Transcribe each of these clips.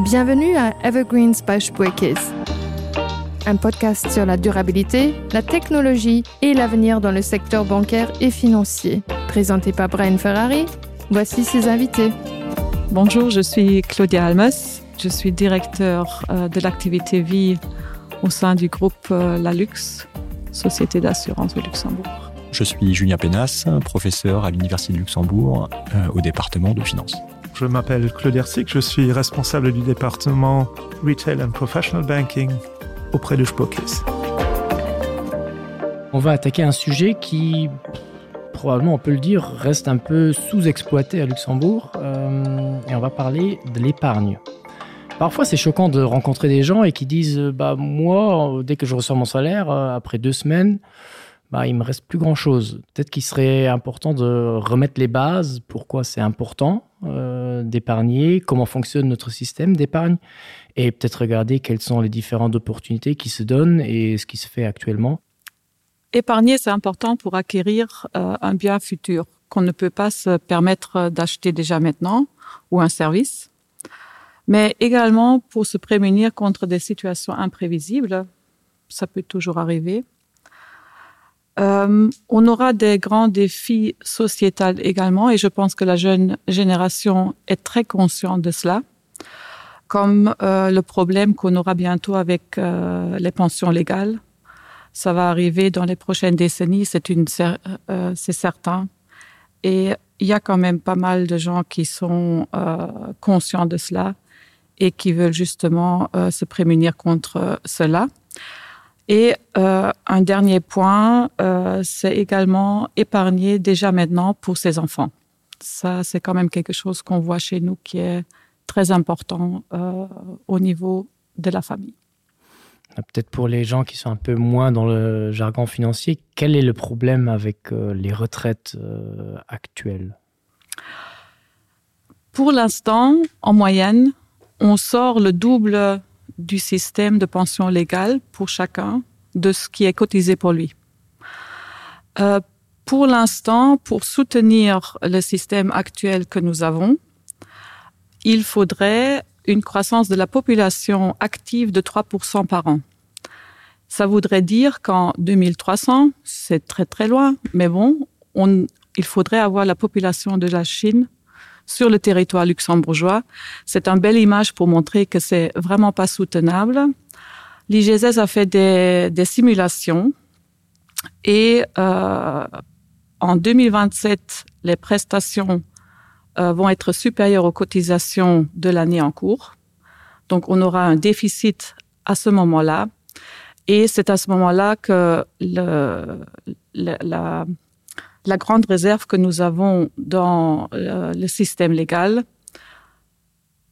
Bienvenue à Evergreens by Spuerkeess. Un podcast sur la durabilité, la technologie et l'avenir dans le secteur bancaire et financier. Présenté par Brian Ferrari, voici ses invités. Bonjour, je suis Claudia Almes, je suis directeur euh, de l'activité vie au sein du groupe euh, La Luxe, société d'assurance de Luxembourg. Je suis Julien Penas, professeur à l'Université de Luxembourg euh, au département de finance. Je m'appelle Claude Hersic, je suis responsable du département Retail and Professional Banking auprès de Spokis. On va attaquer un sujet qui probablement on peut le dire reste un peu sous-exploité à Luxembourg euh, et on va parler de l'épargne. Parfois c'est choquant de rencontrer des gens et qui disent bah moi dès que je reçois mon salaire euh, après deux semaines, bah, il me reste plus grand chose. Peut-être qu'il serait important de remettre les bases, pourquoi c'est important euh, d'épargner, comment fonctionne notre système d'épargne et peut-être regarder quelles sont les différentes opportunités qui se donnent et ce qui se fait actuellement. Épargner, c'est important pour acquérir euh, un bien futur qu'on ne peut pas se permettre d'acheter déjà maintenant ou un service, mais également pour se prémunir contre des situations imprévisibles, ça peut toujours arriver. Euh, on aura des grands défis sociétals également et je pense que la jeune génération est très consciente de cela, comme euh, le problème qu'on aura bientôt avec euh, les pensions légales. Ça va arriver dans les prochaines décennies, c'est une euh, c'est certain. Et il y a quand même pas mal de gens qui sont euh, conscients de cela et qui veulent justement euh, se prémunir contre cela. Et euh, un dernier point, euh, c'est également épargner déjà maintenant pour ses enfants. Ça, c'est quand même quelque chose qu'on voit chez nous qui est très important euh, au niveau de la famille. Ah, peut-être pour les gens qui sont un peu moins dans le jargon financier, quel est le problème avec euh, les retraites euh, actuelles? Pour l'instant, en moyenne, on sort le double du système de pension légale pour chacun de ce qui est cotisé pour lui. Euh, pour l'instant, pour soutenir le système actuel que nous avons, il faudrait une croissance de la population active de 3% par an. Ça voudrait dire qu'en 2300, c'est très très loin, mais bon, on, il faudrait avoir la population de la Chine sur le territoire luxembourgeois. C'est une belle image pour montrer que c'est vraiment pas soutenable. L'IGSS a fait des, des simulations et euh, en 2027, les prestations euh, vont être supérieures aux cotisations de l'année en cours. Donc on aura un déficit à ce moment-là. Et c'est à ce moment-là que le, le, la, la grande réserve que nous avons dans euh, le système légal,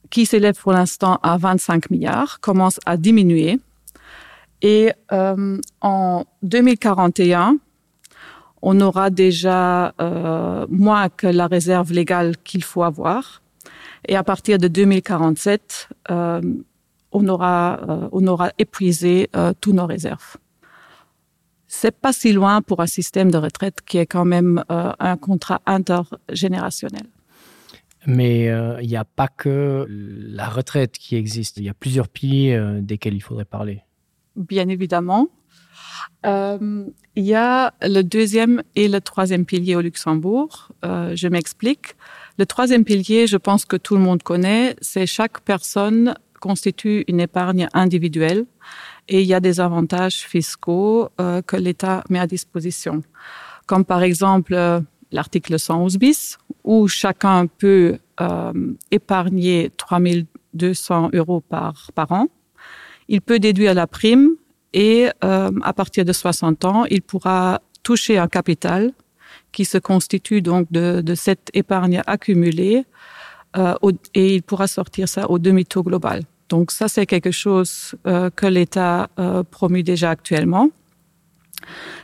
qui s'élève pour l'instant à 25 milliards, commence à diminuer. Et euh, en 2041, on aura déjà euh, moins que la réserve légale qu'il faut avoir. Et à partir de 2047, euh, on, aura, euh, on aura épuisé euh, tous nos réserves. C'est pas si loin pour un système de retraite qui est quand même euh, un contrat intergénérationnel. Mais euh, il euh, n'y a pas que la retraite qui existe. Il y a plusieurs piliers euh, desquels il faudrait parler. Bien évidemment. Euh, il y a le deuxième et le troisième pilier au Luxembourg. Euh, je m'explique. Le troisième pilier, je pense que tout le monde connaît, c'est chaque personne constitue une épargne individuelle et il y a des avantages fiscaux euh, que l'État met à disposition. Comme par exemple euh, l'article 111 bis où chacun peut euh, épargner 3200 euros par, par an. Il peut déduire la prime et euh, à partir de 60 ans, il pourra toucher un capital qui se constitue donc de, de cette épargne accumulée euh, au, et il pourra sortir ça au demi-taux global. Donc ça c'est quelque chose euh, que l'État euh, promu déjà actuellement.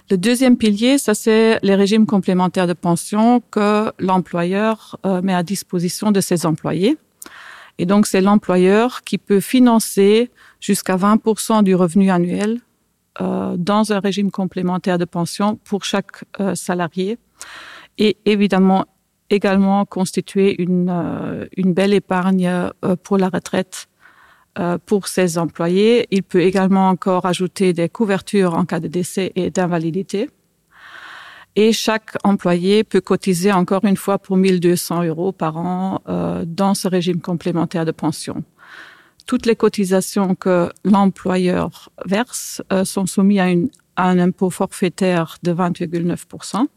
Le deuxième pilier, ça c'est les régimes complémentaires de pension que l'employeur euh, met à disposition de ses employés. Et donc c'est l'employeur qui peut financer jusqu'à 20% du revenu annuel euh, dans un régime complémentaire de pension pour chaque euh, salarié et évidemment également constituer une, euh, une belle épargne euh, pour la retraite. euh, pour ses employés. Il peut également encore ajouter des couvertures en cas de décès et d'invalidité. Et chaque employé peut cotiser encore une fois pour 1200 euros par an euh, dans ce régime complémentaire de pension. Toutes les cotisations que l'employeur verse euh, sont soumises à, une, à un impôt forfaitaire de 20,9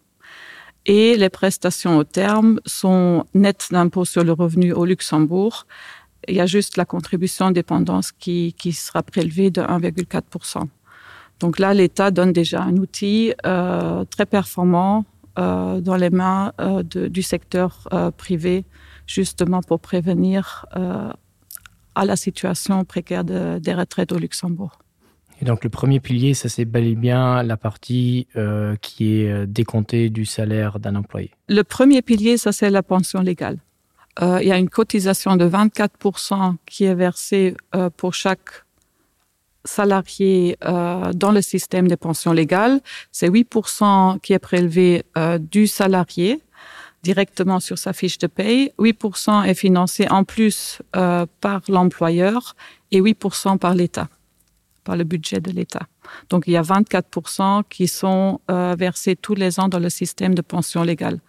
et les prestations au terme sont nettes d'impôt sur le revenu au Luxembourg. Il y a juste la contribution dépendance qui, qui sera prélevée de 1,4 Donc là, l'État donne déjà un outil euh, très performant euh, dans les mains euh, de, du secteur euh, privé, justement pour prévenir euh, à la situation précaire de, des retraites au Luxembourg. Et donc le premier pilier, ça c'est bel et bien la partie euh, qui est euh, décomptée du salaire d'un employé. Le premier pilier, ça c'est la pension légale. Euh, il y a une cotisation de 24 qui est versée euh, pour chaque salarié euh, dans le système des pensions légales. C'est 8 qui est prélevé euh, du salarié directement sur sa fiche de paye. 8 est financé en plus euh, par l'employeur et 8 par l'État par le budget de l'État. Donc il y a 24 qui sont euh, versés tous les ans dans le système de pension légale.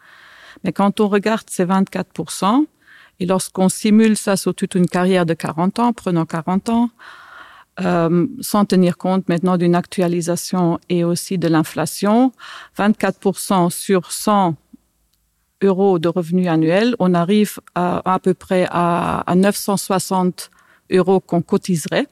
Mais quand on regarde ces 24 et lorsqu'on simule ça sur toute une carrière de 40 ans, prenant 40 ans, euh, sans tenir compte maintenant d'une actualisation et aussi de l'inflation, 24 sur 100 euros de revenus annuels, on arrive à, à peu près à, à 960 euros qu'on cotiserait.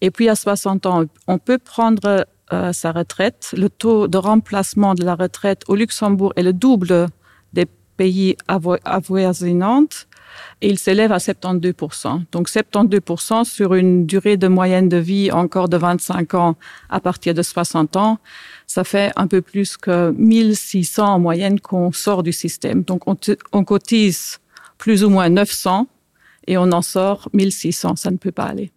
Et puis à 60 ans, on peut prendre euh, sa retraite. Le taux de remplacement de la retraite au Luxembourg est le double des pays avoisinants et il s'élève à 72 Donc 72 sur une durée de moyenne de vie encore de 25 ans à partir de 60 ans, ça fait un peu plus que 1600 en moyenne qu'on sort du système. Donc on, on cotise plus ou moins 900 et on en sort 1600, ça ne peut pas aller.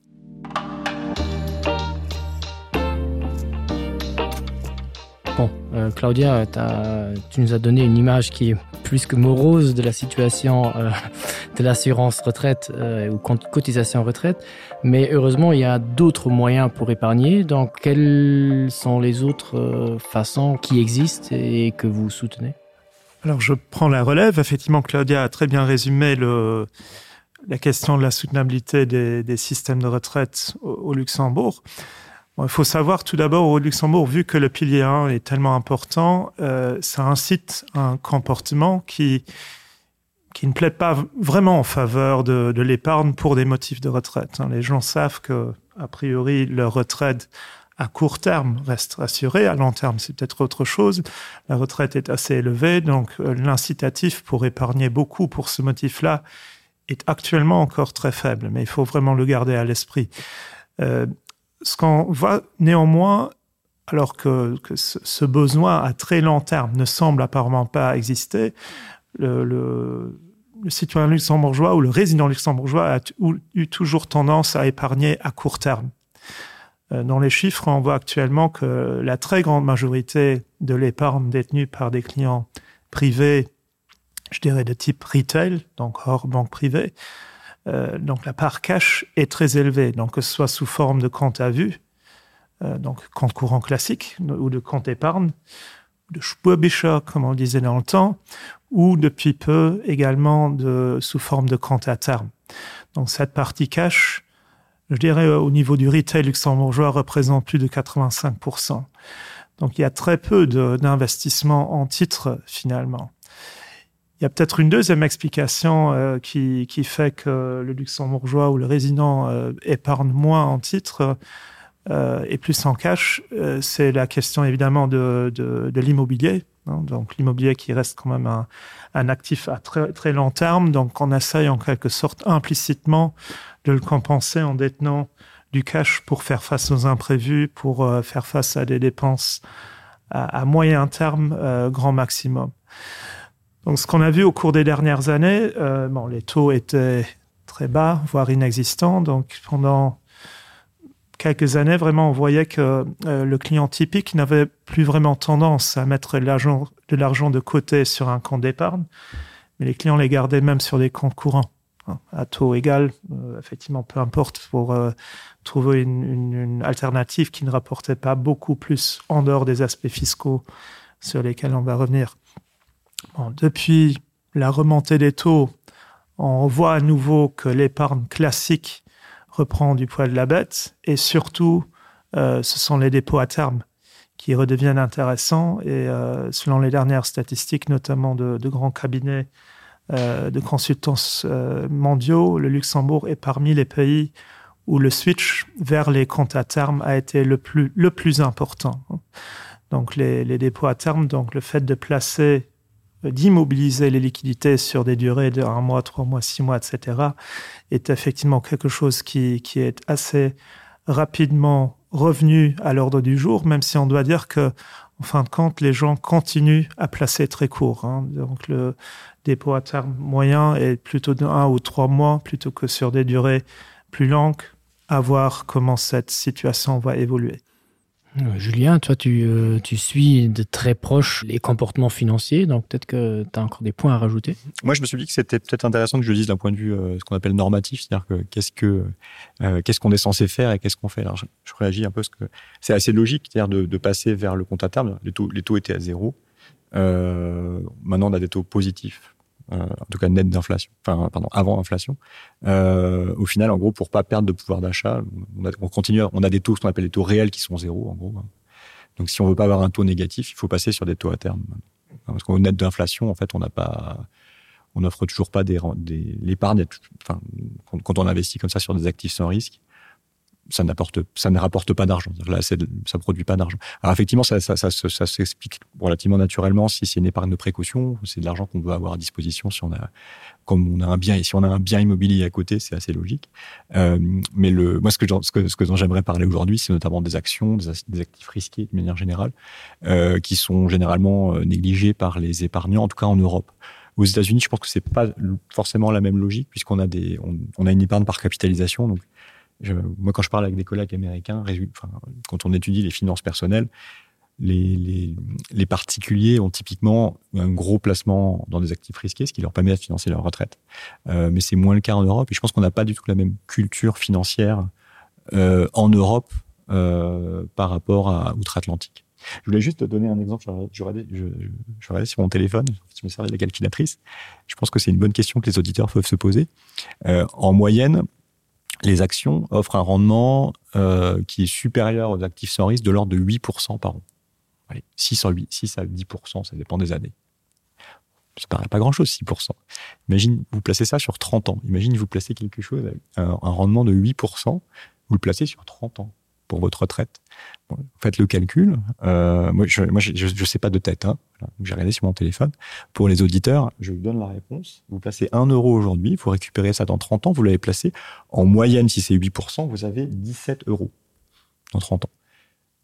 Bon, euh, Claudia, as, tu nous as donné une image qui est plus que morose de la situation euh, de l'assurance retraite euh, ou cotisation retraite, mais heureusement, il y a d'autres moyens pour épargner. Donc, quelles sont les autres euh, façons qui existent et que vous soutenez Alors, je prends la relève. Effectivement, Claudia a très bien résumé le, la question de la soutenabilité des, des systèmes de retraite au, au Luxembourg. Bon, il faut savoir tout d'abord au Luxembourg, vu que le pilier 1 est tellement important, euh, ça incite un comportement qui, qui ne plaide pas vraiment en faveur de, de l'épargne pour des motifs de retraite. Les gens savent que, a priori, leur retraite à court terme reste assurée, à long terme c'est peut-être autre chose. La retraite est assez élevée, donc euh, l'incitatif pour épargner beaucoup pour ce motif-là est actuellement encore très faible, mais il faut vraiment le garder à l'esprit. Euh, ce qu'on voit néanmoins, alors que, que ce, ce besoin à très long terme ne semble apparemment pas exister, le, le, le citoyen luxembourgeois ou le résident luxembourgeois a eu toujours tendance à épargner à court terme. Euh, dans les chiffres, on voit actuellement que la très grande majorité de l'épargne détenue par des clients privés, je dirais de type retail, donc hors banque privée, euh, donc la part cash est très élevée, donc que ce soit sous forme de compte à vue, euh, donc compte courant classique ou de compte épargne, de Spurbischer, comme on disait dans le temps, ou depuis peu également de, sous forme de compte à terme. Donc cette partie cash, je dirais au niveau du retail luxembourgeois, représente plus de 85%. Donc il y a très peu d'investissement en titres finalement. Il y a peut-être une deuxième explication euh, qui, qui fait que le luxembourgeois ou le résident euh, épargne moins en titres euh, et plus en cash, euh, c'est la question évidemment de, de, de l'immobilier. Donc l'immobilier qui reste quand même un, un actif à très, très long terme, donc on essaye en quelque sorte implicitement de le compenser en détenant du cash pour faire face aux imprévus, pour euh, faire face à des dépenses à, à moyen terme euh, grand maximum. Donc ce qu'on a vu au cours des dernières années, euh, bon, les taux étaient très bas, voire inexistants. Donc pendant quelques années, vraiment, on voyait que euh, le client typique n'avait plus vraiment tendance à mettre de l'argent de côté sur un compte d'épargne, mais les clients les gardaient même sur des comptes courants. À taux égal, euh, effectivement, peu importe pour euh, trouver une, une, une alternative qui ne rapportait pas beaucoup plus en dehors des aspects fiscaux sur lesquels on va revenir. Bon, depuis la remontée des taux, on voit à nouveau que l'épargne classique reprend du poil de la bête et surtout euh, ce sont les dépôts à terme qui redeviennent intéressants et euh, selon les dernières statistiques notamment de, de grands cabinets euh, de consultants euh, mondiaux, le Luxembourg est parmi les pays où le switch vers les comptes à terme a été le plus, le plus important. Donc les, les dépôts à terme, donc le fait de placer d'immobiliser les liquidités sur des durées de un mois, trois mois, six mois, etc., est effectivement quelque chose qui, qui est assez rapidement revenu à l'ordre du jour, même si on doit dire que en fin de compte, les gens continuent à placer très court. Hein. Donc le dépôt à terme moyen est plutôt de un ou trois mois plutôt que sur des durées plus longues, à voir comment cette situation va évoluer. Euh, Julien, toi tu, euh, tu suis de très proche les comportements financiers, donc peut-être que tu as encore des points à rajouter. Moi je me suis dit que c'était peut-être intéressant que je dise d'un point de vue euh, ce qu'on appelle normatif, c'est-à-dire que qu'est-ce que euh, qu'est-ce qu'on est censé faire et qu'est-ce qu'on fait. Alors je, je réagis un peu parce que c'est assez logique c'est-à-dire de, de passer vers le compte à terme, les taux, les taux étaient à zéro. Euh, maintenant on a des taux positifs euh, en tout cas net d'inflation enfin pardon avant inflation euh, au final en gros pour pas perdre de pouvoir d'achat on, on continue on a des taux ce qu'on appelle les taux réels qui sont zéro en gros hein. donc si on veut pas avoir un taux négatif il faut passer sur des taux à terme parce qu'au net d'inflation en fait on n'a pas on offre toujours pas des, des l'épargne enfin quand, quand on investit comme ça sur des actifs sans risque ça n'apporte ça ne rapporte pas d'argent là c'est ça produit pas d'argent alors effectivement ça ça, ça, ça, ça s'explique relativement naturellement si c'est une épargne de précaution c'est de l'argent qu'on veut avoir à disposition si on a comme on a un bien et si on a un bien immobilier à côté c'est assez logique euh, mais le moi ce que ce que ce que dont j'aimerais parler aujourd'hui c'est notamment des actions des, des actifs risqués de manière générale euh, qui sont généralement euh, négligés par les épargnants en tout cas en Europe aux États Unis je pense que c'est pas forcément la même logique puisqu'on a des on, on a une épargne par capitalisation donc je, moi quand je parle avec des collègues américains enfin, quand on étudie les finances personnelles les, les, les particuliers ont typiquement un gros placement dans des actifs risqués ce qui leur permet de financer leur retraite euh, mais c'est moins le cas en Europe et je pense qu'on n'a pas du tout la même culture financière euh, en Europe euh, par rapport à outre-Atlantique. Je voulais juste te donner un exemple je, je, je, je regardais sur mon téléphone je me servais de la calculatrice je pense que c'est une bonne question que les auditeurs peuvent se poser euh, en moyenne les actions offrent un rendement euh, qui est supérieur aux actifs sans risque de l'ordre de 8% par an. Allez, 6 à 8, 6 à 10%, ça dépend des années. Ça paraît pas grand-chose, 6%. Imagine, vous placez ça sur 30 ans. Imagine, vous placez quelque chose avec un, un rendement de 8%, vous le placez sur 30 ans pour votre retraite. Bon, faites le calcul. Euh, moi, je, moi, je, je, je sais pas de tête. Hein. Voilà. J'ai regardé sur mon téléphone. Pour les auditeurs, je vous donne la réponse. Vous placez 1 euro aujourd'hui, vous récupérez ça dans 30 ans, vous l'avez placé. En moyenne, si c'est 8%, vous avez 17 euros dans 30 ans.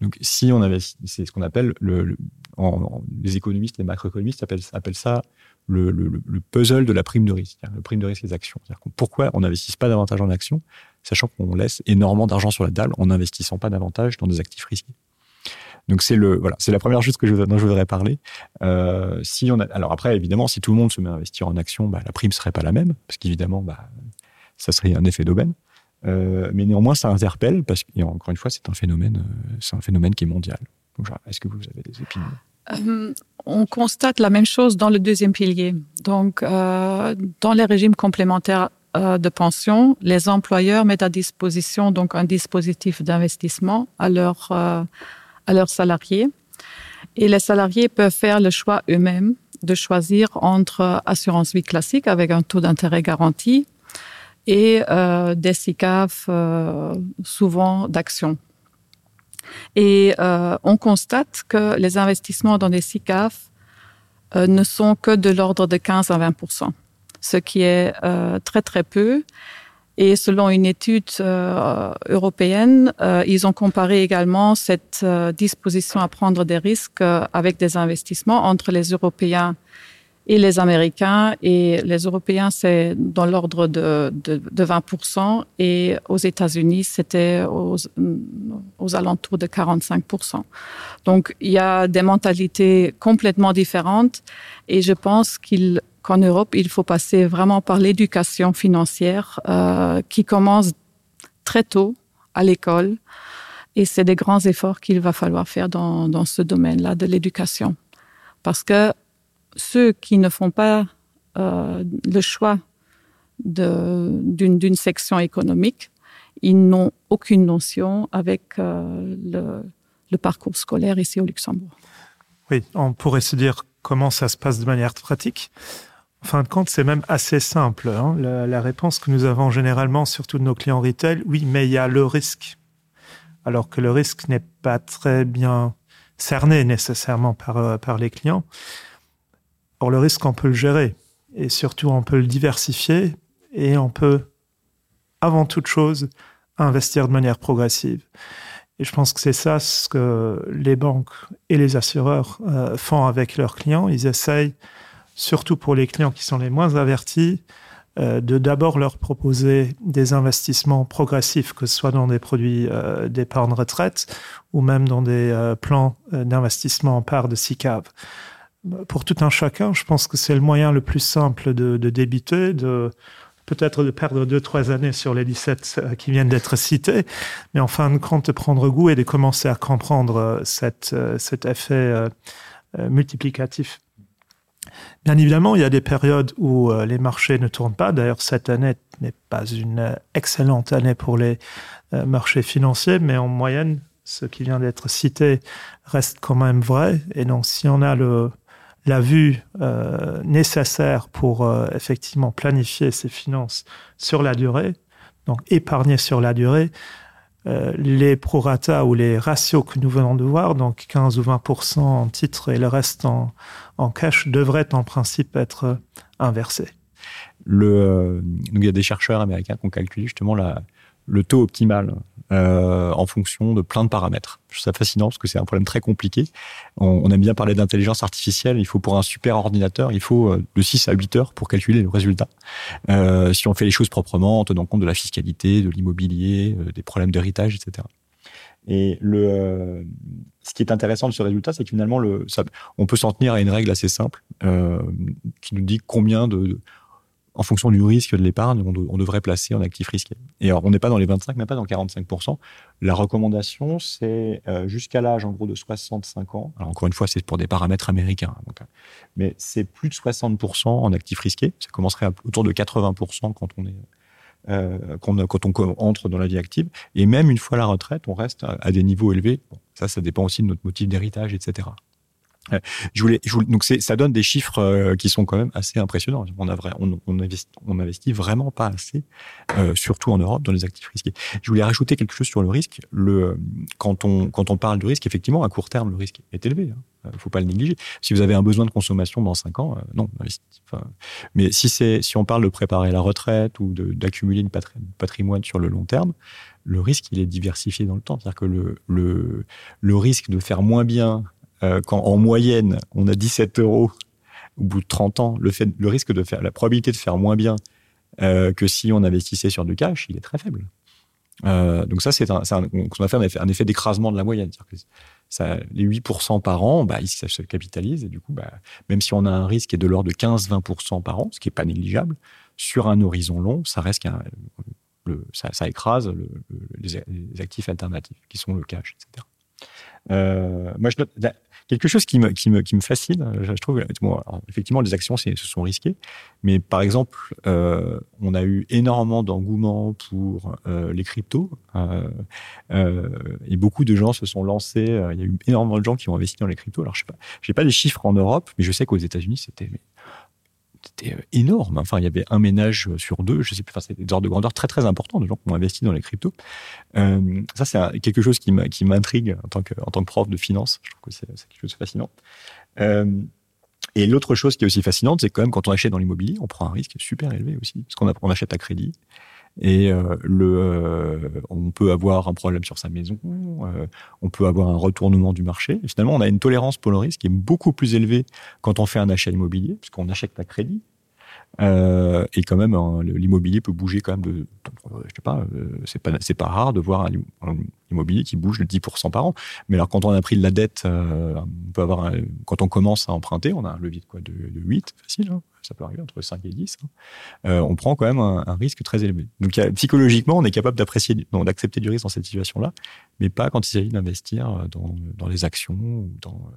Donc, si on avait, c'est ce qu'on appelle le, le, en, en, les économistes, les macroéconomistes appellent, appellent ça le, le, le puzzle de la prime de risque, le prime de risque des actions. Pourquoi on n'investisse pas davantage en actions, sachant qu'on laisse énormément d'argent sur la table en n'investissant pas davantage dans des actifs risqués. Donc c'est le voilà, c'est la première chose que je, dont je voudrais parler. Euh, si on a, alors après évidemment si tout le monde se met à investir en action, bah, la prime serait pas la même parce qu'évidemment bah, ça serait un effet d'aubaine. Euh, mais néanmoins ça interpelle parce que encore une fois c'est un phénomène euh, c'est un phénomène qui est mondial. Est-ce que vous avez des opinions euh, On constate la même chose dans le deuxième pilier. Donc euh, dans les régimes complémentaires euh, de pension, les employeurs mettent à disposition donc un dispositif d'investissement à leur euh, à leurs salariés. Et les salariés peuvent faire le choix eux-mêmes de choisir entre assurance vie classique avec un taux d'intérêt garanti et euh, des SICAF euh, souvent d'actions. Et euh, on constate que les investissements dans des SICAF euh, ne sont que de l'ordre de 15 à 20 ce qui est euh, très très peu. Et selon une étude euh, européenne, euh, ils ont comparé également cette euh, disposition à prendre des risques euh, avec des investissements entre les Européens et les Américains. Et les Européens, c'est dans l'ordre de, de, de 20 et aux États-Unis, c'était aux, aux alentours de 45 Donc il y a des mentalités complètement différentes et je pense qu'il qu'en Europe, il faut passer vraiment par l'éducation financière euh, qui commence très tôt à l'école et c'est des grands efforts qu'il va falloir faire dans, dans ce domaine-là de l'éducation. Parce que ceux qui ne font pas euh, le choix d'une section économique, ils n'ont aucune notion avec euh, le, le parcours scolaire ici au Luxembourg. Oui, on pourrait se dire comment ça se passe de manière pratique. En fin de compte, c'est même assez simple. Hein. La, la réponse que nous avons généralement, surtout de nos clients retail, oui, mais il y a le risque. Alors que le risque n'est pas très bien cerné nécessairement par, euh, par les clients. Or, le risque, on peut le gérer et surtout, on peut le diversifier et on peut, avant toute chose, investir de manière progressive. Et je pense que c'est ça ce que les banques et les assureurs euh, font avec leurs clients. Ils essayent, surtout pour les clients qui sont les moins avertis, euh, de d'abord leur proposer des investissements progressifs, que ce soit dans des produits euh, d'épargne retraite ou même dans des euh, plans euh, d'investissement en part de SICAV. Pour tout un chacun, je pense que c'est le moyen le plus simple de, de débiter, de peut-être de perdre deux trois années sur les 17 euh, qui viennent d'être cités, mais en fin de compte de prendre goût et de commencer à comprendre euh, cette, euh, cet effet multiplicatif. Bien évidemment, il y a des périodes où les marchés ne tournent pas. D'ailleurs, cette année n'est pas une excellente année pour les marchés financiers, mais en moyenne, ce qui vient d'être cité reste quand même vrai. Et donc, si on a le, la vue euh, nécessaire pour euh, effectivement planifier ses finances sur la durée, donc épargner sur la durée, euh, les prorata ou les ratios que nous venons de voir, donc 15 ou 20% en titre et le reste en, en cash, devraient en principe être euh, inversés. Le, euh, donc il y a des chercheurs américains qui ont calculé justement la, le taux optimal euh, en fonction de plein de paramètres. Je trouve ça fascinant parce que c'est un problème très compliqué. On, on aime bien parler d'intelligence artificielle, il faut pour un super ordinateur, il faut euh, de 6 à 8 heures pour calculer le résultat. Euh, si on fait les choses proprement en tenant compte de la fiscalité, de l'immobilier, euh, des problèmes d'héritage, etc. Et le, euh, ce qui est intéressant de ce résultat, c'est que finalement le, ça, on peut s'en tenir à une règle assez simple euh, qui nous dit combien de, de en fonction du risque de l'épargne, on, de, on devrait placer en actif risqué. Et alors, on n'est pas dans les 25, mais pas dans 45%. La recommandation, c'est euh, jusqu'à l'âge en gros de 65 ans. Alors, encore une fois, c'est pour des paramètres américains. Donc, mais c'est plus de 60% en actif risqué. Ça commencerait à, autour de 80% quand on est euh, quand, quand on entre dans la vie active. Et même une fois la retraite, on reste à, à des niveaux élevés. Bon, ça, ça dépend aussi de notre motif d'héritage, etc. Euh, je voulais, je voulais, donc ça donne des chiffres euh, qui sont quand même assez impressionnants. On, a vrai, on, on, investit, on investit vraiment pas assez, euh, surtout en Europe, dans les actifs risqués. Je voulais rajouter quelque chose sur le risque. Le, quand, on, quand on parle du risque, effectivement, à court terme, le risque est élevé. Il ne faut pas le négliger. Si vous avez un besoin de consommation dans cinq ans, euh, non. Enfin, mais si, si on parle de préparer la retraite ou d'accumuler une patri patrimoine sur le long terme, le risque, il est diversifié dans le temps. C'est-à-dire que le, le, le risque de faire moins bien euh, quand en moyenne on a 17 euros au bout de 30 ans, le, fait, le risque de faire la probabilité de faire moins bien euh, que si on investissait sur du cash, il est très faible. Euh, donc ça c'est un, un, on a fait un effet, un effet d'écrasement de la moyenne que ça, les 8% par an bah, ça se capitalise et du coup bah, même si on a un risque qui est de l'ordre de 15-20% par an, ce qui est pas négligeable, sur un horizon long, ça reste qu'un le, ça, ça écrase le, le, les, les actifs alternatifs qui sont le cash, etc. Euh, moi, je note, quelque chose qui me, qui me, qui me fascine, je, je trouve, bon, alors, effectivement, les actions ce sont risquées, mais par exemple, euh, on a eu énormément d'engouement pour euh, les cryptos euh, euh, et beaucoup de gens se sont lancés. Euh, il y a eu énormément de gens qui ont investi dans les cryptos. Alors, je sais pas, j'ai pas des chiffres en Europe, mais je sais qu'aux États-Unis, c'était c'était euh, énorme. Enfin, il y avait un ménage euh, sur deux, je sais plus, enfin, c'était des ordres de grandeur très très importants de gens qui ont investi dans les cryptos. Euh, ça, c'est quelque chose qui m'intrigue en tant que, en tant que prof de finance. Je trouve que c'est quelque chose de fascinant. Euh, et l'autre chose qui est aussi fascinante, c'est quand même quand on achète dans l'immobilier, on prend un risque super élevé aussi, parce qu'on on achète à crédit. Et euh, le, euh, on peut avoir un problème sur sa maison, euh, on peut avoir un retournement du marché. Et finalement, on a une tolérance pour le risque qui est beaucoup plus élevée quand on fait un achat immobilier, puisqu'on achète à crédit. Euh, et quand même l'immobilier peut bouger quand même de, je sais pas euh, c'est pas c'est pas rare de voir un, un immobilier qui bouge de 10% par an mais alors quand on a pris de la dette euh, on peut avoir un, quand on commence à emprunter on a un levier de quoi de, de 8 facile hein, ça peut arriver entre 5 et 10 hein. euh, on prend quand même un, un risque très élevé donc y a, psychologiquement on est capable d'apprécier d'accepter du risque dans cette situation là mais pas quand il s'agit d'investir dans, dans les actions ou dans euh,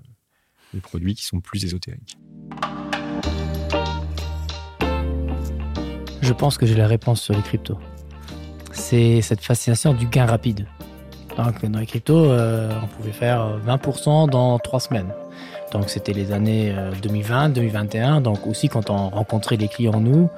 les produits qui sont plus ésotériques. Je pense que j'ai la réponse sur les cryptos. C'est cette fascination du gain rapide. Donc, dans les cryptos, euh, on pouvait faire 20% dans trois semaines. Donc c'était les années 2020, euh, 2021. Donc aussi quand on rencontrait les clients nous,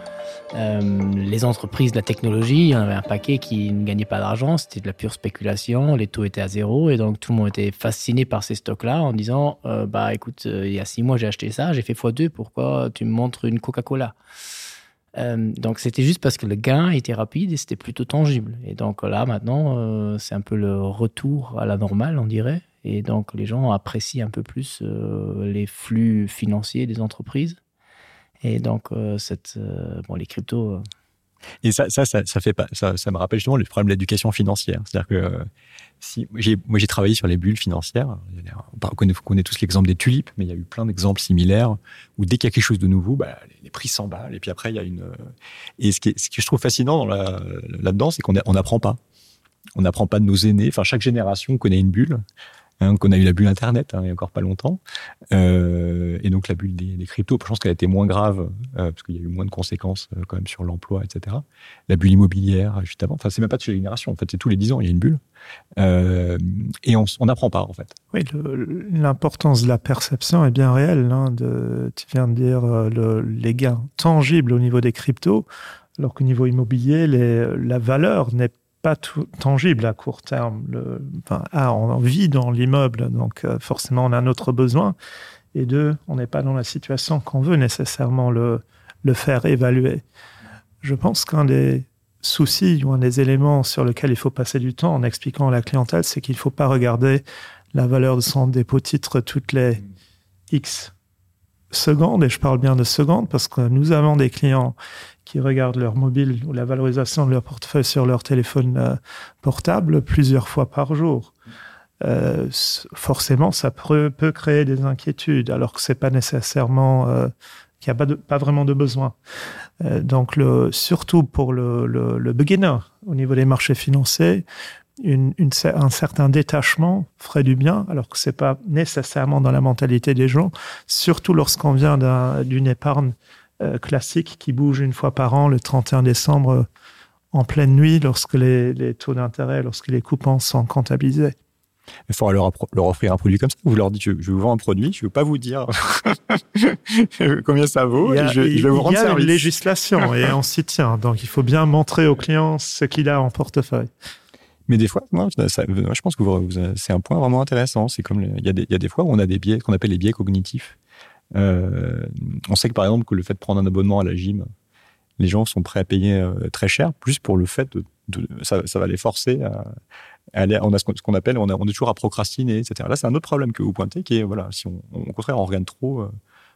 euh, les entreprises de la technologie, il y en avait un paquet qui ne gagnait pas d'argent, c'était de la pure spéculation, les taux étaient à zéro et donc tout le monde était fasciné par ces stocks là en disant euh, bah écoute euh, il y a six mois j'ai acheté ça, j'ai fait x2, pourquoi tu me montres une Coca-Cola? Euh, donc c'était juste parce que le gain était rapide et c'était plutôt tangible. Et donc là maintenant euh, c'est un peu le retour à la normale on dirait et donc les gens apprécient un peu plus euh, les flux financiers des entreprises et donc euh, cette euh, bon les cryptos euh... et ça ça, ça ça fait pas ça, ça me rappelle justement le problème de l'éducation financière c'est à dire que euh, si j'ai moi j'ai travaillé sur les bulles financières on connaît, connaît tous l'exemple des tulipes mais il y a eu plein d'exemples similaires où dès qu'il y a quelque chose de nouveau bah, les, les prix s'emballent et puis après il y a une euh, et ce qui est, ce que je trouve fascinant dans la là dedans c'est qu'on on n'apprend pas on n'apprend pas de nos aînés enfin chaque génération connaît une bulle et qu'on a eu la bulle internet hein, il y a encore pas longtemps euh, et donc la bulle des, des cryptos je pense qu'elle a été moins grave euh, parce qu'il y a eu moins de conséquences euh, quand même sur l'emploi etc la bulle immobilière juste avant enfin c'est même pas de génération en fait c'est tous les dix ans il y a une bulle euh, et on n'apprend pas en fait oui l'importance de la perception est bien réelle hein, de tu viens de dire euh, le, les gains tangibles au niveau des cryptos alors qu'au niveau immobilier les, la valeur n'est pas pas tout tangible à court terme le enfin, ah, on vit dans l'immeuble donc euh, forcément on a un autre besoin et deux on n'est pas dans la situation qu'on veut nécessairement le le faire évaluer je pense qu'un des soucis ou un des éléments sur lequel il faut passer du temps en expliquant à la clientèle c'est qu'il ne faut pas regarder la valeur de son dépôt titre toutes les x secondes et je parle bien de secondes parce que nous avons des clients qui regardent leur mobile ou la valorisation de leur portefeuille sur leur téléphone euh, portable plusieurs fois par jour. Euh, forcément, ça peut, peut créer des inquiétudes alors que ce n'est pas nécessairement euh, qu'il n'y a pas, de, pas vraiment de besoin. Euh, donc le, surtout pour le, le, le beginner au niveau des marchés financiers, une, une, un certain détachement ferait du bien alors que ce n'est pas nécessairement dans la mentalité des gens, surtout lorsqu'on vient d'une un, épargne euh, classique qui bouge une fois par an le 31 décembre euh, en pleine nuit lorsque les, les taux d'intérêt, lorsque les coupons sont comptabilisés. Il faudra leur, leur offrir un produit comme ça. Vous leur dites je, je vous vends un produit, je ne veux pas vous dire combien ça vaut il y a, et je, je vais vous rendre il y a service. une législation et on s'y tient. Donc il faut bien montrer au client ce qu'il a en portefeuille. Mais des fois, non, ça, je pense que vous, vous, c'est un point vraiment intéressant. C'est comme il y, a des, il y a des fois où on a des biais qu'on appelle les biais cognitifs. Euh, on sait que par exemple que le fait de prendre un abonnement à la gym, les gens sont prêts à payer euh, très cher, plus pour le fait de, de ça, ça va les forcer à, à aller on a ce qu'on qu appelle on, a, on est toujours à procrastiner, etc. Là c'est un autre problème que vous pointez qui est voilà si on, on, au contraire on regarde trop euh,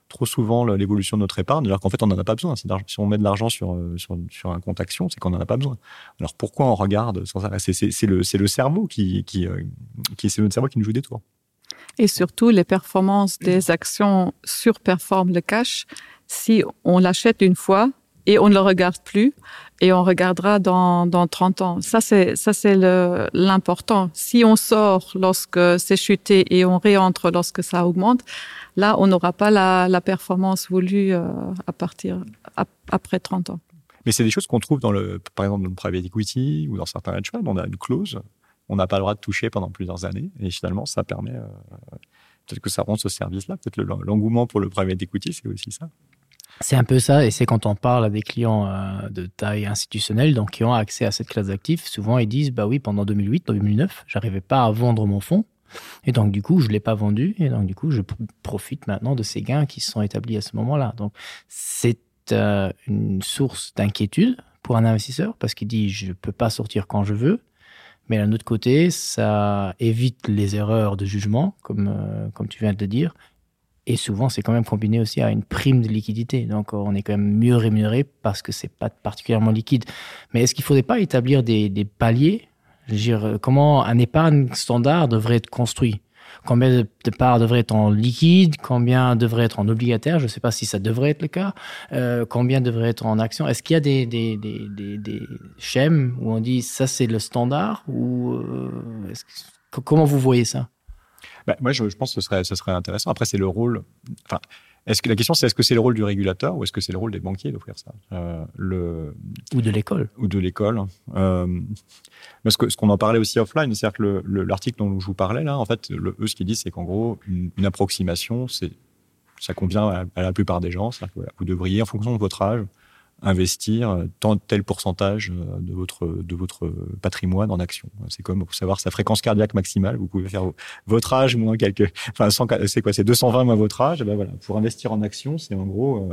trop souvent l'évolution de notre épargne alors qu'en fait on n'en a pas besoin si, si on met de l'argent sur, euh, sur, sur un compte action c'est qu'on n'en a pas besoin alors pourquoi on regarde sans arrêt c'est le c'est le cerveau qui qui, euh, qui c'est notre cerveau qui nous joue des tours et surtout les performances des actions surperforment le cash si on l'achète une fois et on ne le regarde plus et on regardera dans, dans 30 ans. Ça c'est ça c'est l'important. Si on sort lorsque c'est chuté et on réentre lorsque ça augmente, là on n'aura pas la, la performance voulue euh, à partir à, après 30 ans. Mais c'est des choses qu'on trouve dans le par exemple dans le private equity ou dans certains hedge funds, on a une clause, on n'a pas le droit de toucher pendant plusieurs années et finalement ça permet euh, peut-être que ça rend ce service là, peut-être l'engouement pour le private equity, c'est aussi ça. C'est un peu ça et c'est quand on parle à des clients euh, de taille institutionnelle donc qui ont accès à cette classe d'actifs, souvent ils disent bah oui pendant 2008 2009, j'arrivais pas à vendre mon fonds et donc du coup je l'ai pas vendu et donc du coup je profite maintenant de ces gains qui sont établis à ce moment-là. Donc c'est euh, une source d'inquiétude pour un investisseur parce qu'il dit je peux pas sortir quand je veux. Mais d'un autre côté, ça évite les erreurs de jugement, comme, euh, comme tu viens de le dire. Et souvent, c'est quand même combiné aussi à une prime de liquidité. Donc on est quand même mieux rémunéré parce que c'est pas particulièrement liquide. Mais est-ce qu'il faudrait pas établir des, des paliers Je veux dire, comment un épargne standard devrait être construit Combien de parts devraient être en liquide Combien devrait être en obligataire Je ne sais pas si ça devrait être le cas. Euh, combien devrait être en action Est-ce qu'il y a des, des, des, des, des schèmes où on dit ça c'est le standard ou euh, que, comment vous voyez ça bah, Moi je, je pense que ce serait, ce serait intéressant. Après c'est le rôle enfin, est-ce que la question c'est est-ce que c'est le rôle du régulateur ou est-ce que c'est le rôle des banquiers d'offrir ça euh, le ou de l'école ou de l'école euh, parce que ce qu'on en parlait aussi offline c'est à dire que l'article dont je vous parlais là en fait le eux ce qu'ils disent c'est qu'en gros une, une approximation c'est ça convient à, à la plupart des gens c'est que voilà, vous devriez en fonction de votre âge investir euh, tant tel pourcentage euh, de votre de votre patrimoine en action c'est comme pour savoir sa fréquence cardiaque maximale vous pouvez faire votre âge moins quelques enfin c'est quoi c'est 220 moins votre âge et ben voilà pour investir en action c'est en gros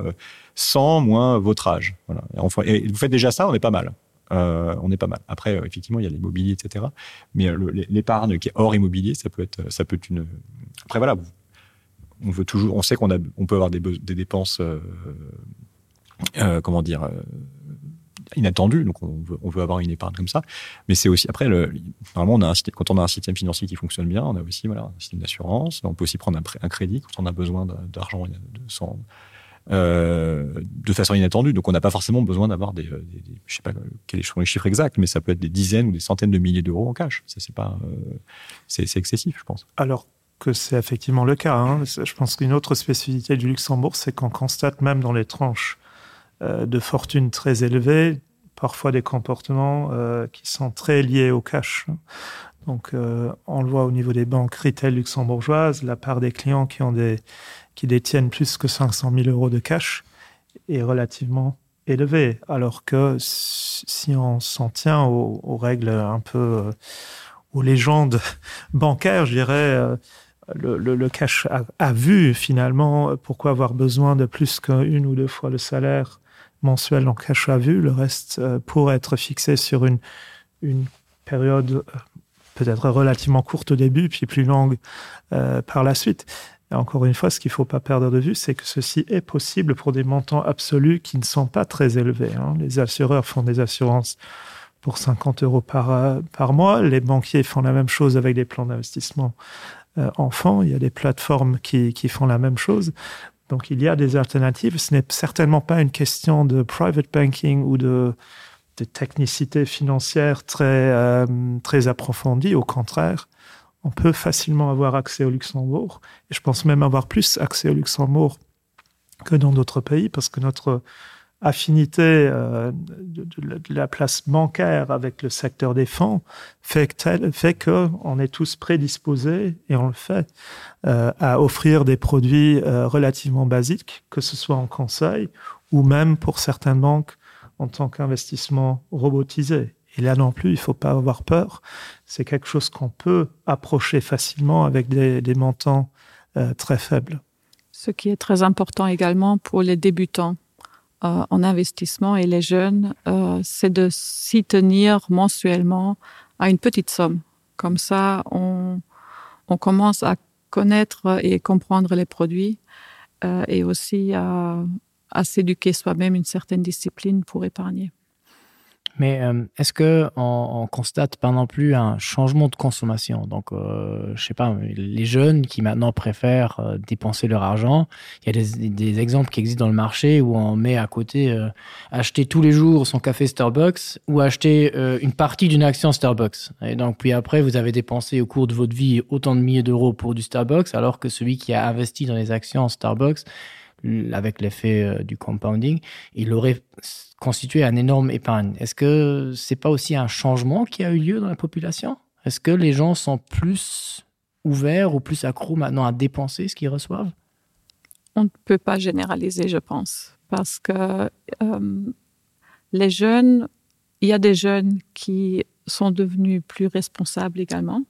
100 euh, moins votre âge voilà et, enfin, et vous faites déjà ça on est pas mal euh, on est pas mal après effectivement il y a l'immobilier etc mais l'épargne qui est hors immobilier ça peut être ça peut être une après voilà on veut toujours on sait qu'on a on peut avoir des, des dépenses euh, euh, comment dire euh, inattendu donc on veut, on veut avoir une épargne comme ça mais c'est aussi après le normalement on a un, quand on a un système financier qui fonctionne bien on a aussi voilà un système d'assurance on peut aussi prendre un, un crédit quand on a besoin d'argent sans euh, de façon inattendue donc on n'a pas forcément besoin d'avoir des, euh, des, des je sais pas quels sont les chiffres exacts mais ça peut être des dizaines ou des centaines de milliers d'euros en cash ça c'est pas euh, c'est excessif je pense alors que c'est effectivement le cas hein. je pense qu'une autre spécificité du luxembourg c'est qu'on constate même dans les tranches euh, de fortune très élevées, parfois des comportements euh, qui sont très liés au cash. Donc euh, on le voit au niveau des banques retail luxembourgeoises, la part des clients qui ont des qui détiennent plus que 500 000 euros de cash est relativement élevée, alors que si on s'en tient aux, aux règles un peu euh, aux légendes bancaires, je dirais, euh, le, le, le cash a, a vu finalement pourquoi avoir besoin de plus qu'une ou deux fois le salaire mensuel en cash à vue, le reste euh, pourrait être fixé sur une, une période euh, peut-être relativement courte au début, puis plus longue euh, par la suite. Et encore une fois, ce qu'il ne faut pas perdre de vue, c'est que ceci est possible pour des montants absolus qui ne sont pas très élevés. Hein. Les assureurs font des assurances pour 50 euros par, euh, par mois. Les banquiers font la même chose avec des plans d'investissement euh, enfants. Il y a des plateformes qui, qui font la même chose. Donc il y a des alternatives. Ce n'est certainement pas une question de private banking ou de, de technicité financière très, euh, très approfondie. Au contraire, on peut facilement avoir accès au Luxembourg. Et je pense même avoir plus accès au Luxembourg que dans d'autres pays parce que notre affinité euh, de, de, de la place bancaire avec le secteur des fonds fait que tel, fait que on est tous prédisposés et on le fait euh, à offrir des produits euh, relativement basiques, que ce soit en conseil ou même pour certaines banques en tant qu'investissement robotisé. Et là non plus, il ne faut pas avoir peur. C'est quelque chose qu'on peut approcher facilement avec des, des montants euh, très faibles. Ce qui est très important également pour les débutants euh, en investissement et les jeunes, euh, c'est de s'y tenir mensuellement à une petite somme. Comme ça, on, on commence à connaître et comprendre les produits euh, et aussi à, à s'éduquer soi-même une certaine discipline pour épargner. Mais euh, est-ce que on, on constate pas non plus un changement de consommation donc euh, je sais pas les jeunes qui maintenant préfèrent euh, dépenser leur argent il y a des, des exemples qui existent dans le marché où on met à côté euh, acheter tous les jours son café Starbucks ou acheter euh, une partie d'une action Starbucks et donc puis après vous avez dépensé au cours de votre vie autant de milliers d'euros pour du Starbucks alors que celui qui a investi dans les actions Starbucks avec l'effet euh, du compounding il aurait constitué un énorme épargne. Est-ce que c'est pas aussi un changement qui a eu lieu dans la population? Est-ce que les gens sont plus ouverts ou plus accros maintenant à dépenser ce qu'ils reçoivent? On ne peut pas généraliser, je pense, parce que euh, les jeunes, il y a des jeunes qui sont devenus plus responsables également.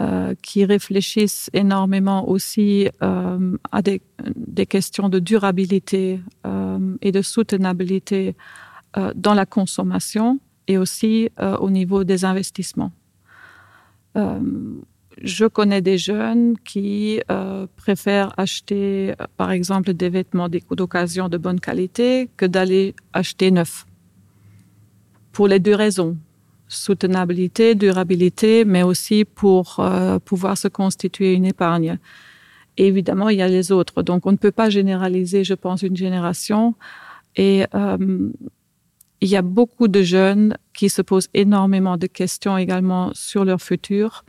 Euh, qui réfléchissent énormément aussi euh, à des, des questions de durabilité euh, et de soutenabilité euh, dans la consommation et aussi euh, au niveau des investissements. Euh, Je connais des jeunes qui euh, préfèrent acheter par exemple des vêtements d'occasion de bonne qualité que d'aller acheter neuf. Pour les deux raisons soutenabilité, durabilité, mais aussi pour euh, pouvoir se constituer une épargne. Et évidemment, il y a les autres. Donc on ne peut pas généraliser, je pense, une génération. Et euh, il y a beaucoup de jeunes qui se posent énormément de questions également sur leur futur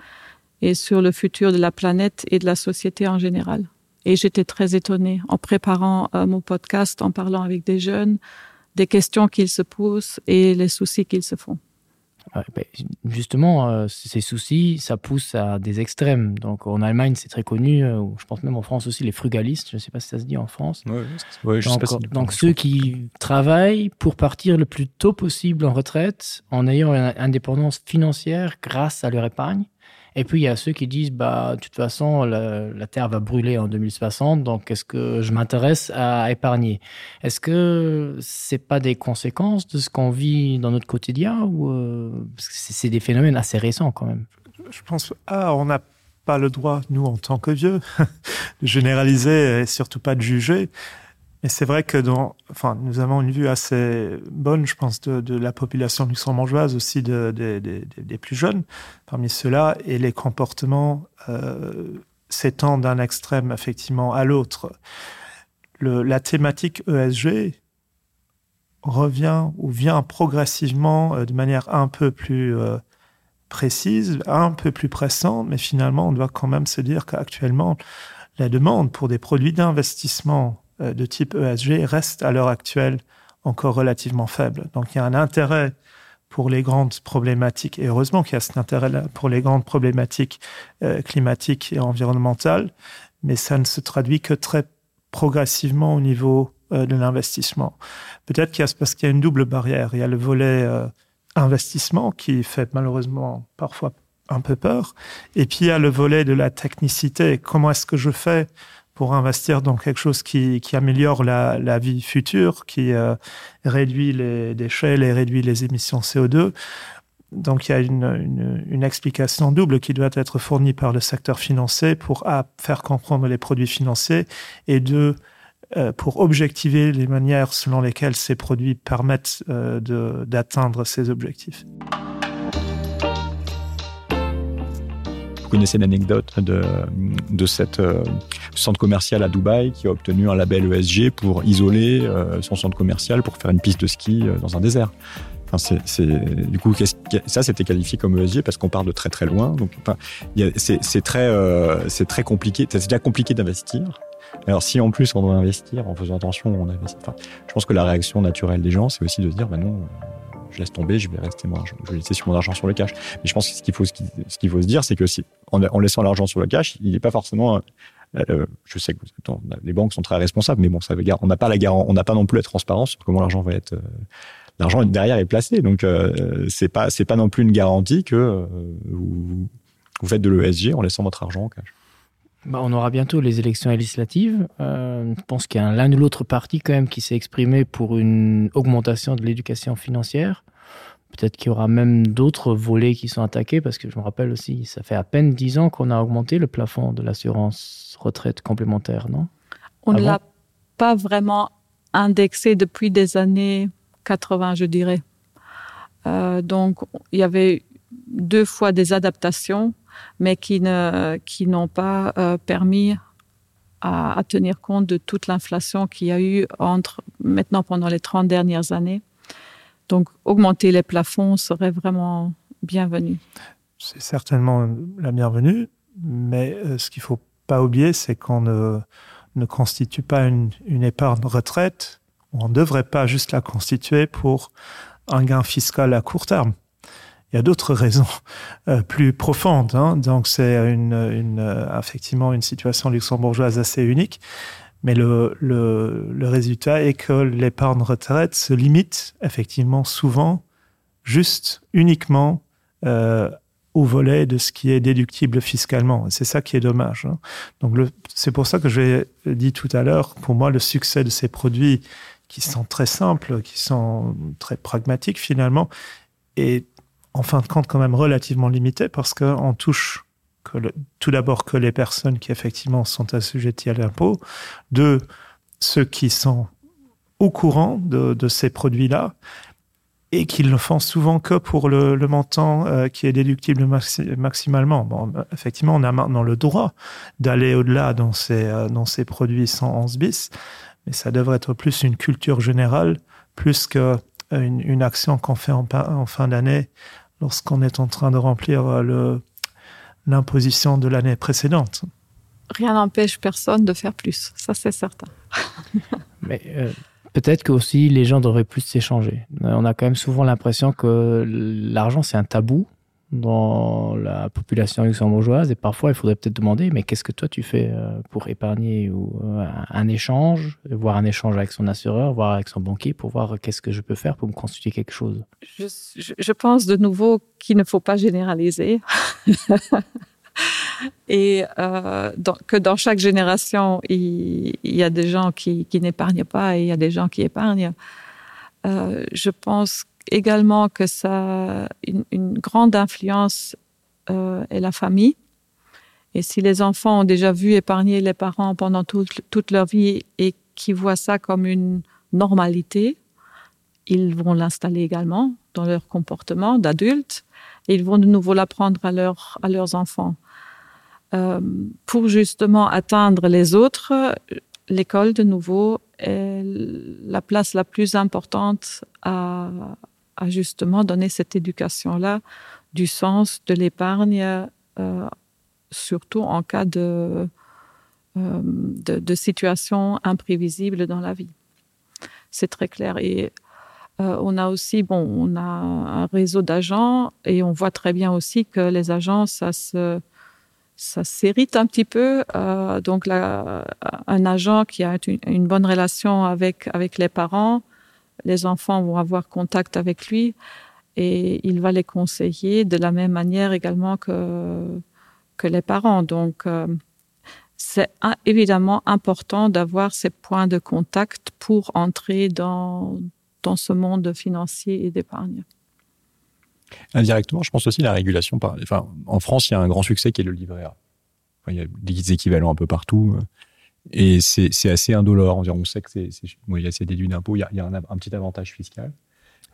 et sur le futur de la planète et de la société en général. Et j'étais très étonnée en préparant euh, mon podcast, en parlant avec des jeunes, des questions qu'ils se posent et les soucis qu'ils se font. Ouais, ben, justement, euh, ces soucis, ça pousse à des extrêmes. Donc en Allemagne, c'est très connu, euh, je pense même en France aussi, les frugalistes, je ne sais pas si ça se dit en France. Ouais, ouais, je donc, sais pas si donc ceux qui travaillent pour partir le plus tôt possible en retraite, en ayant une indépendance financière grâce à leur épargne. Et puis il y a ceux qui disent bah de toute façon la, la terre va brûler en 2060 donc est-ce que je m'intéresse à épargner Est-ce que c'est pas des conséquences de ce qu'on vit dans notre quotidien ou euh, c'est des phénomènes assez récents quand même Je pense ah, on n'a pas le droit nous en tant que vieux de généraliser et surtout pas de juger. Mais c'est vrai que dans, enfin, nous avons une vue assez bonne, je pense, de, de la population luxembourgeoise aussi de, de, de, de, des plus jeunes parmi ceux-là et les comportements euh, s'étendent d'un extrême effectivement à l'autre. La thématique ESG revient ou vient progressivement euh, de manière un peu plus euh, précise, un peu plus pressante, mais finalement on doit quand même se dire qu'actuellement la demande pour des produits d'investissement euh, de type ESG reste à l'heure actuelle encore relativement faible. Donc il y a un intérêt pour les grandes problématiques et heureusement qu'il y a cet intérêt là pour les grandes problématiques euh, climatiques et environnementales, mais ça ne se traduit que très progressivement au niveau euh, de l'investissement. Peut-être qu'il y a parce qu'il y a une double barrière, il y a le volet euh, investissement qui fait malheureusement parfois un peu peur et puis il y a le volet de la technicité comment est-ce que je fais pour investir dans quelque chose qui, qui améliore la, la vie future, qui euh, réduit les déchets, les réduit les émissions CO2. Donc il y a une, une, une explication double qui doit être fournie par le secteur financier pour a, faire comprendre les produits financiers et deux, euh, pour objectiver les manières selon lesquelles ces produits permettent euh, d'atteindre ces objectifs. connaissez l'anecdote de, de cette euh, centre commercial à Dubaï qui a obtenu un label ESG pour isoler euh, son centre commercial pour faire une piste de ski euh, dans un désert. Enfin, c'est du coup qu ça c'était qualifié comme ESG parce qu'on part de très très loin donc enfin, c'est très euh, c'est très compliqué c'est déjà compliqué d'investir alors si en plus on doit investir en faisant attention on investit enfin, je pense que la réaction naturelle des gens c'est aussi de se dire ben non euh, je laisse tomber je vais rester moi je vais laisser sur mon argent sur le cash mais je pense que ce qu'il faut ce qu'il faut se dire c'est que si en, en laissant l'argent sur le cash il n'est pas forcément euh, je sais que attends, les banques sont très responsables mais bon ça veut dire on n'a pas la garant on n'a pas non plus la transparence sur comment l'argent va être euh, l'argent derrière est placé donc euh, c'est pas c'est pas non plus une garantie que euh, vous, vous faites de l'ESG en laissant votre argent en cash Bah, on aura bientôt les élections législatives. Euh, je pense qu'il y a l'un ou l'autre parti quand même qui s'est exprimé pour une augmentation de l'éducation financière. Peut-être qu'il y aura même d'autres volets qui sont attaqués parce que je me rappelle aussi, ça fait à peine dix ans qu'on a augmenté le plafond de l'assurance retraite complémentaire, non On ne ah l'a bon pas vraiment indexé depuis des années 80, je dirais. Euh, donc il y avait deux fois des adaptations, mais qui ne qui n'ont pas euh, permis à, à tenir compte de toute l'inflation qu'il y a eu entre maintenant pendant les 30 dernières années. Donc augmenter les plafonds serait vraiment bienvenu. C'est certainement la bienvenue, mais euh, ce qu'il faut pas oublier, c'est qu'on ne, ne constitue pas une, une épargne retraite, on ne devrait pas juste la constituer pour un gain fiscal à court terme. Il y a d'autres raisons euh, plus profondes hein. donc c'est une, une euh, effectivement une situation luxembourgeoise assez unique mais le, le, le résultat est que l'épargne retraite se limite effectivement souvent juste uniquement euh, au volet de ce qui est déductible fiscalement c'est ça qui est dommage hein. donc c'est pour ça que j'ai dit tout à l'heure pour moi le succès de ces produits qui sont très simples qui sont très pragmatiques finalement et en fin de compte quand même relativement limité parce qu'on touche que le, tout d'abord que les personnes qui effectivement sont assujetties à l'impôt, deux, ceux qui sont au courant de, de ces produits-là et qu'ils ne font souvent que pour le, le montant euh, qui est déductible maxi maximalement. Bon, effectivement, on a maintenant le droit d'aller au-delà dans ces, euh, dans ces produits 111 bis, mais ça devrait être plus une culture générale, plus qu'une une action qu'on fait en, en fin d'année lorsqu'on est en train de remplir euh, l'imposition de l'année précédente. Rien n'empêche personne de faire plus, ça c'est certain. mais euh, peut-être que aussi les gens devraient plus s'échanger. Euh, on a quand même souvent l'impression que l'argent c'est un tabou dans la population luxembourgeoise et parfois il faudrait peut-être demander mais qu'est-ce que toi tu fais euh, pour épargner ou euh, un échange voir un échange avec son assureur voir avec son banquier pour voir qu'est-ce que je peux faire pour me constituer quelque chose je, je, je pense de nouveau qu'il ne faut pas généraliser et euh, dans, que dans chaque génération il, il y a des gens qui, qui n'épargnent pas et il y a des gens qui épargnent euh, je pense également que ça une, une grande influence euh, est la famille et si les enfants ont déjà vu épargner les parents pendant toute, toute leur vie et qui voient ça comme une normalité ils vont l'installer également dans leur comportement d'adulte et ils vont de nouveau l'apprendre à leur à leurs enfants euh, pour justement atteindre les autres l'école de nouveau est la place la plus importante à, à justement donner cette éducation là du sens de l'épargne euh, surtout en cas de, euh, de, de situation imprévisible dans la vie c'est très clair et euh, on a aussi bon on a un réseau d'agents et on voit très bien aussi que les agents ça se ça s'hérite un petit peu euh, donc là un agent qui a une, une bonne relation avec avec les parents les enfants vont avoir contact avec lui et il va les conseiller de la même manière également que que les parents donc euh, c'est évidemment important d'avoir ces points de contact pour entrer dans dans ce monde financier et d'épargne. Indirectement, je pense aussi la régulation par enfin, en France, il y a un grand succès qui est le livret A. Enfin, il y a des équivalents un peu partout et c'est assez indolore. On sait que c'est bon, il y a assez déduit d'impôt, il y a, il y a un, un petit avantage fiscal.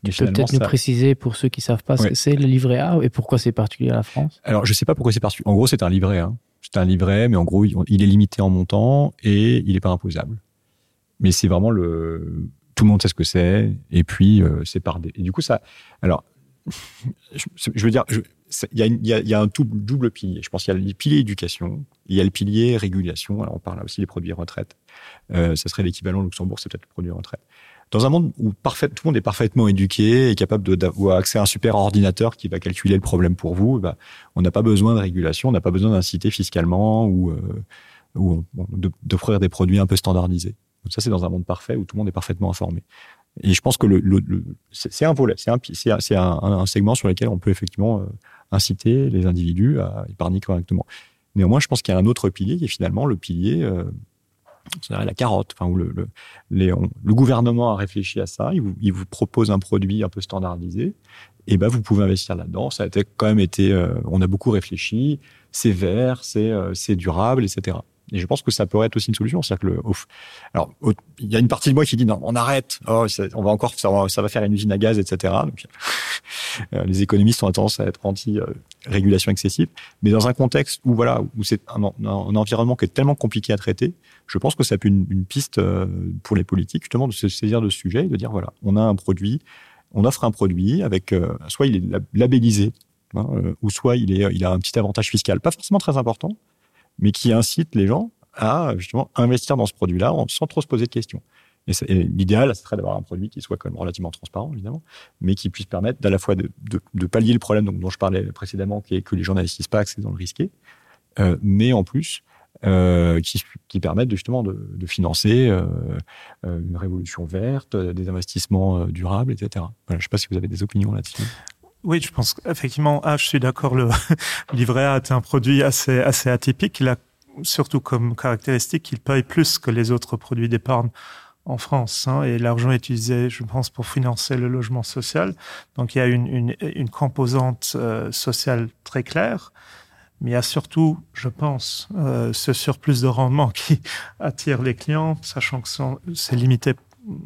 Mais tu peux peut-être nous préciser pour ceux qui savent pas ce ouais. que c'est le livret A et pourquoi c'est particulier à la France Alors je sais pas pourquoi c'est particulier. En gros, c'est un livret hein. C'est un livret, mais en gros, il est limité en montant et il n'est pas imposable. Mais c'est vraiment le tout le monde sait ce que c'est et puis euh, c'est par des et du coup ça alors je, je veux dire il y a, y, a, y a un tout double pilier je pense qu'il y a le pilier éducation il y a le pilier régulation alors on parle aussi des produits retraite euh, ça serait l'équivalent luxembourg c'est peut-être le produit retraite dans un monde où parfait tout le monde est parfaitement éduqué et capable d'avoir accès à un super ordinateur qui va calculer le problème pour vous bah, on n'a pas besoin de régulation on n'a pas besoin d'inciter fiscalement ou euh, ou d'offrir des produits un peu standardisés Donc ça c'est dans un monde parfait où tout le monde est parfaitement informé. Et je pense que le, le, le c'est un volet, c'est un, un, un, un segment sur lequel on peut effectivement euh, inciter les individus à épargner correctement. Néanmoins, je pense qu'il y a un autre pilier qui est finalement le pilier euh, la carotte enfin où le, le, les, on, le gouvernement a réfléchi à ça, il vous, il vous propose un produit un peu standardisé et ben vous pouvez investir là-dedans. Ça a été, quand même été euh, on a beaucoup réfléchi, c'est vert, c'est euh, durable, etc. Et je pense que ça pourrait être aussi une solution c'est à dire que le off. alors il y a une partie de moi qui dit non on arrête oh, ça, on va encore ça va, ça va faire une usine à gaz etc donc euh, les économistes ont tendance à être anti euh, régulation excessive mais dans un contexte où voilà où c'est un, un, un environnement qui est tellement compliqué à traiter je pense que ça peut une, une piste euh, pour les politiques justement de se saisir de ce sujet et de dire voilà on a un produit on offre un produit avec euh, soit il est labellisé hein, euh, ou soit il est il a un petit avantage fiscal pas forcément très important mais qui incite les gens à justement investir dans ce produit là sans trop se poser de questions. Et, et l'idéal serait d'avoir un produit qui soit quand même relativement transparent évidemment, mais qui puisse permettre d'à la fois de, de, de pallier le problème dont, dont je parlais précédemment qui est que les gens n'investissent pas c'est dans le risqué, euh, mais en plus euh, qui, qui permettent justement de, de financer euh, euh une révolution verte, des investissements euh, durables, etc. Voilà, je sais pas si vous avez des opinions là-dessus. Oui, je pense effectivement ah, je suis d'accord le livret A est un produit assez assez atypique. Il a surtout comme caractéristique qu'il paye plus que les autres produits d'épargne en France hein, et l'argent est utilisé je pense pour financer le logement social. Donc il y a une, une, une composante euh, sociale très claire. Mais il y a surtout, je pense, euh, ce surplus de rendement qui attire les clients, sachant que c'est limité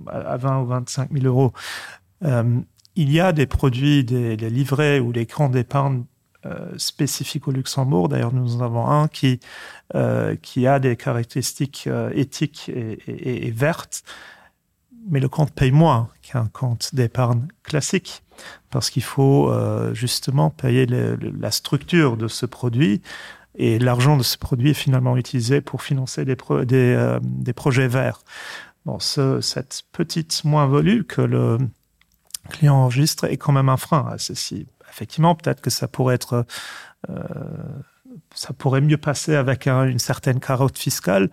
à 20 ou 25 000 euros. Euh, il y a des produits, des, des livrets ou des grands d'épargne euh, spécifiques au Luxembourg. D'ailleurs, nous en avons un qui, euh, qui a des caractéristiques euh, éthiques et, et, et vertes. Mais le compte paye moins qu'un compte d'épargne classique parce qu'il faut euh, justement payer le, le, la structure de ce produit et l'argent de ce produit est finalement utilisé pour financer des, pro des, euh, des projets verts. Bon, ce, cette petite moins-value que le client enregistre est quand même un frein à ceci. Effectivement, peut-être que ça pourrait être euh, ça pourrait mieux passer avec un, une certaine carotte fiscale.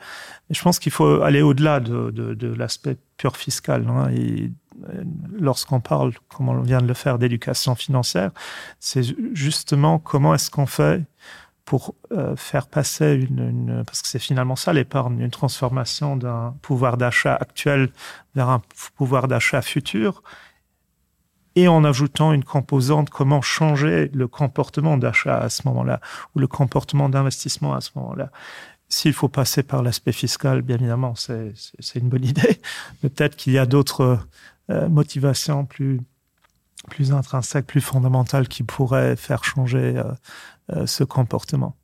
Mais je pense qu'il faut aller au-delà de, de, de l'aspect pur fiscal. Hein, et euh, lorsqu'on parle, comme on vient de le faire, d'éducation financière, c'est justement comment est-ce qu'on fait pour euh, faire passer une, une parce que c'est finalement ça l'épargne, une transformation d'un pouvoir d'achat actuel vers un pouvoir d'achat futur et en ajoutant une composante comment changer le comportement d'achat à ce moment-là ou le comportement d'investissement à ce moment-là. S'il faut passer par l'aspect fiscal, bien évidemment, c'est une bonne idée, mais peut-être qu'il y a d'autres euh, motivations plus, plus intrinsèques, plus fondamentales qui pourraient faire changer euh, euh, ce comportement.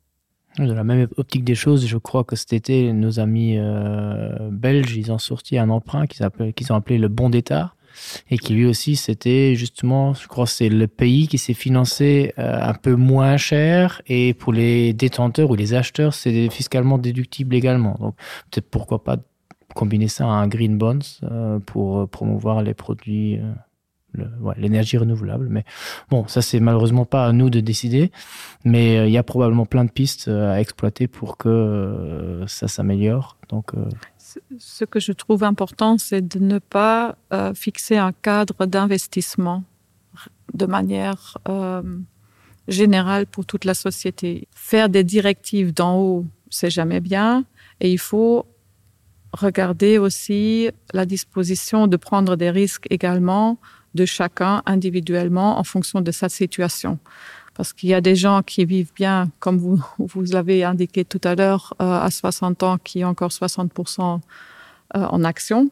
Dans la même optique des choses, je crois que cet été, nos amis euh, belges, ils ont sorti un emprunt qu'ils qu ont appelé le bon d'État et qui lui aussi c'était justement je crois c'est le pays qui s'est financé euh, un peu moins cher et pour les détenteurs ou les acheteurs c'est fiscalement déductible également donc peut-être pourquoi pas combiner ça à un green bonds euh, pour euh, promouvoir les produits euh, l'énergie ouais, renouvelable mais bon ça c'est malheureusement pas à nous de décider mais euh, il euh, ya probablement plein de pistes euh, à exploiter pour que euh, ça s'améliore donc euh, ce que je trouve important, c'est de ne pas euh, fixer un cadre d'investissement de manière euh, générale pour toute la société. Faire des directives d'en haut, c'est jamais bien et il faut regarder aussi la disposition de prendre des risques également de chacun individuellement en fonction de sa situation. Parce qu'il y a des gens qui vivent bien, comme vous, vous l'avez indiqué tout à l'heure, euh, à 60 ans, qui ont encore 60% euh, en action.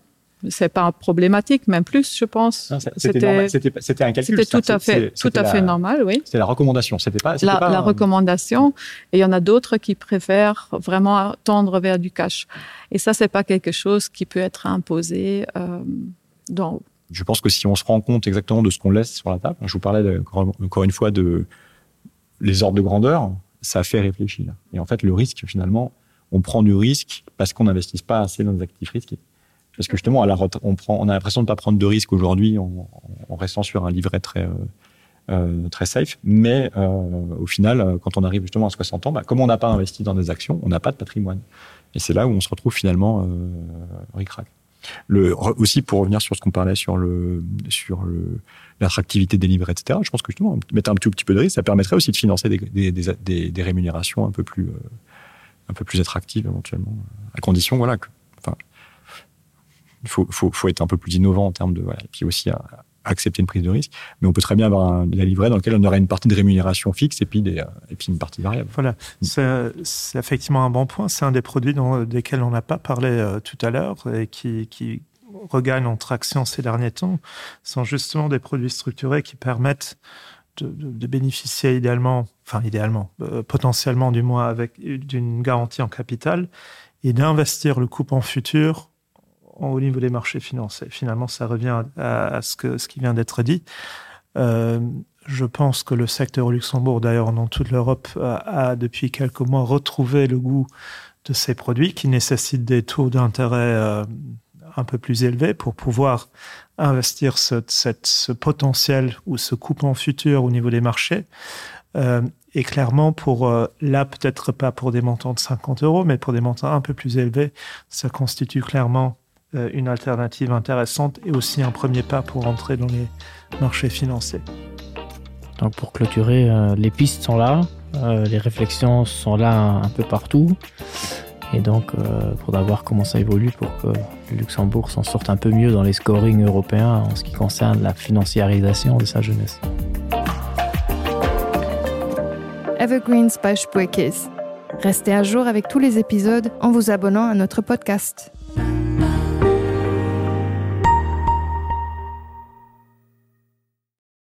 C'est pas problématique, même plus, je pense. C'était un calcul. C'était tout à fait, tout à fait normal, oui. C'était la recommandation. C'était pas, la, pas la recommandation. Et il y en a d'autres qui préfèrent vraiment tendre vers du cash. Et ça, c'est pas quelque chose qui peut être imposé euh, d'en haut. Je pense que si on se rend compte exactement de ce qu'on laisse sur la table, je vous parlais de, encore, encore une fois de les ordres de grandeur, ça fait réfléchir. Et en fait, le risque, finalement, on prend du risque parce qu'on n'investisse pas assez dans des actifs risqués. Parce que justement, à la on, prend, on a l'impression de ne pas prendre de risque aujourd'hui en, en restant sur un livret très, euh, euh, très safe. Mais euh, au final, euh, quand on arrive justement à 60 ans, bah, comme on n'a pas investi dans des actions, on n'a pas de patrimoine. Et c'est là où on se retrouve finalement euh, ric-rac. Le, aussi pour revenir sur ce qu'on parlait sur le sur le l'attractivité des livrets etc je pense que justement mettre un tout petit peu de risque ça permettrait aussi de financer des, des, des, des, des rémunérations un peu plus euh, un peu plus attractives éventuellement à condition voilà que enfin il faut, faut, faut être un peu plus innovant en termes de voilà, et puis aussi à, accepter une prise de risque mais on peut très bien avoir un, la livret dans lequel on aurait une partie de rémunération fixe et puis des euh, et puis une partie variable voilà c'est effectivement un bon point c'est un des produits dont, desquels on n'a pas parlé euh, tout à l'heure et qui, qui regagne en traction ces derniers temps sont justement des produits structurés qui permettent de, de, de bénéficier idéalement enfin idéalement euh, potentiellement du moins avec d'une garantie en capital et d'investir le coupon futur au niveau des marchés financiers. Finalement, ça revient à, à ce, que, ce qui vient d'être dit. Euh, je pense que le secteur au Luxembourg, d'ailleurs dans toute l'Europe, a, a depuis quelques mois retrouvé le goût de ces produits qui nécessitent des taux d'intérêt euh, un peu plus élevés pour pouvoir investir ce, cette, ce potentiel ou ce coupon futur au niveau des marchés. Euh, et clairement, pour euh, là, peut-être pas pour des montants de 50 euros, mais pour des montants un peu plus élevés, ça constitue clairement euh, une alternative intéressante et aussi un premier pas pour entrer dans les marchés financiers. Donc pour clôturer, euh, les pistes sont là, euh, les réflexions sont là un, un peu partout. Et donc euh, faudra voir comment ça évolue pour que le Luxembourg s'en sorte un peu mieux dans les scorings européens en ce qui concerne la financiarisation de sa jeunesse. Evergreens by Spuerkeess. Restez à jour avec tous les épisodes en vous abonnant à notre podcast.